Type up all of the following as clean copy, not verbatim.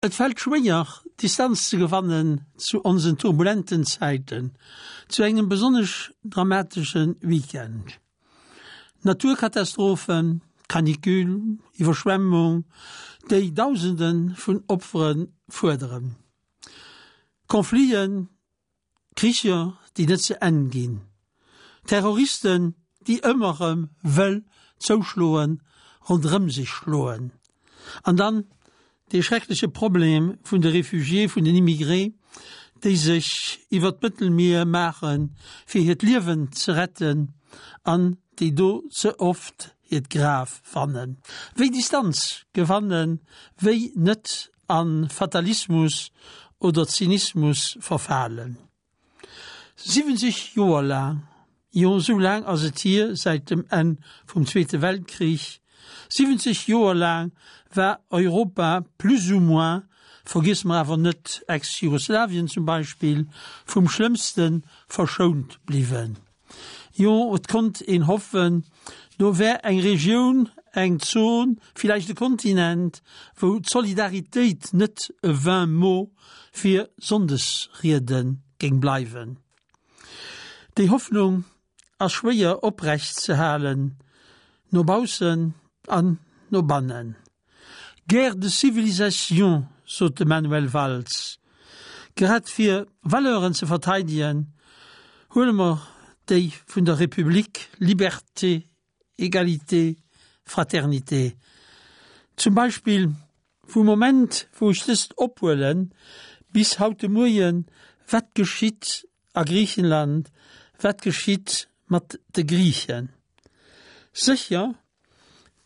Et fält schwéier, Distanz ze gewannen zu onsen turbulenten Zäiten, zu engem besonnesch dramatesche Weekend. Naturkatastrophen, Canicule, Iwwerschwemmung, déi Dausende vun Opfere fuerderen. Confliten, Kricher, déi net ze Enn ginn, Terroristen, déi ëmmer erëm wëll zouschloen, ronderëm sech schloen, an dann dee schreckleche Problem vun de Réfugiés, vun den Immigrés, déi sech iwwert d'Mëttelmier maachen, fir hiert Liewen ze retten, an déi do ze oft hiert Graf fannen. Wéi Distanz gewannen, wéi net a Fatalismus oder Zynismus verfalen. 70 Joer laang, jo esou laang ass et hier säit dem Enn vum Zweete Weltkrich, 70 Joer laang war Europa plus ou moins, vergiesse mer awer net Ex-Jugoslawien zum Beispill, vum Schlëmmste verschount bliwwen. Jo, et konnt een hoffen, do wär eng Regioun, eng Zon, villäicht e Kontinent, wou d'Solidaritéit net e vain mot fir Sonndesriede géing bleiwen. Déi Hoffnung ass schwéier oprecht ze halen, no baussen an no bannen. Guerre de civilisation, sot de Manuel Valls. Grad fir Valeuren ze verteidegen, huele mer déi vun der Republik, Liberté, Egalité, Fraternité. Zum Beispill vum Moment wou ech dëst ophuelen bis haut de Moien, wat geschitt a Griichenland, wat geschitt mat de Griichen? Sécher,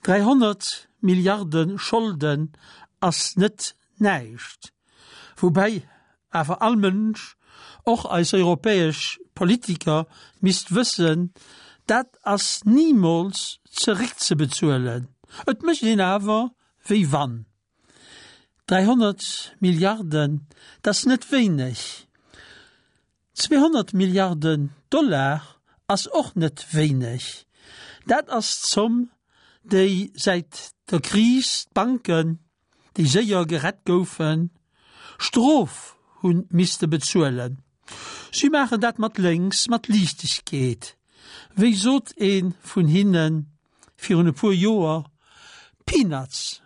300 Milliarde Scholden ass net näischt, woubäi awer all Mënsch, och eis europäesch Politiker, misst wëssen, dat ass nimools zeréckzebezuelen. Et mécht een awer wéi wann. 300 Milliarden, dat ass net wéineg. 200 Milliarden Dollar ass och net wéineg. Dat ass d'Zomm, déi säit der Kris d'Banken, déi séier gerett goufen, Strof hu misste bezuelen. Si maachen dat mat lénks, mat Liichtegkeet. Wéi sot ee vun hinne virun e puer Joer, Peanuts!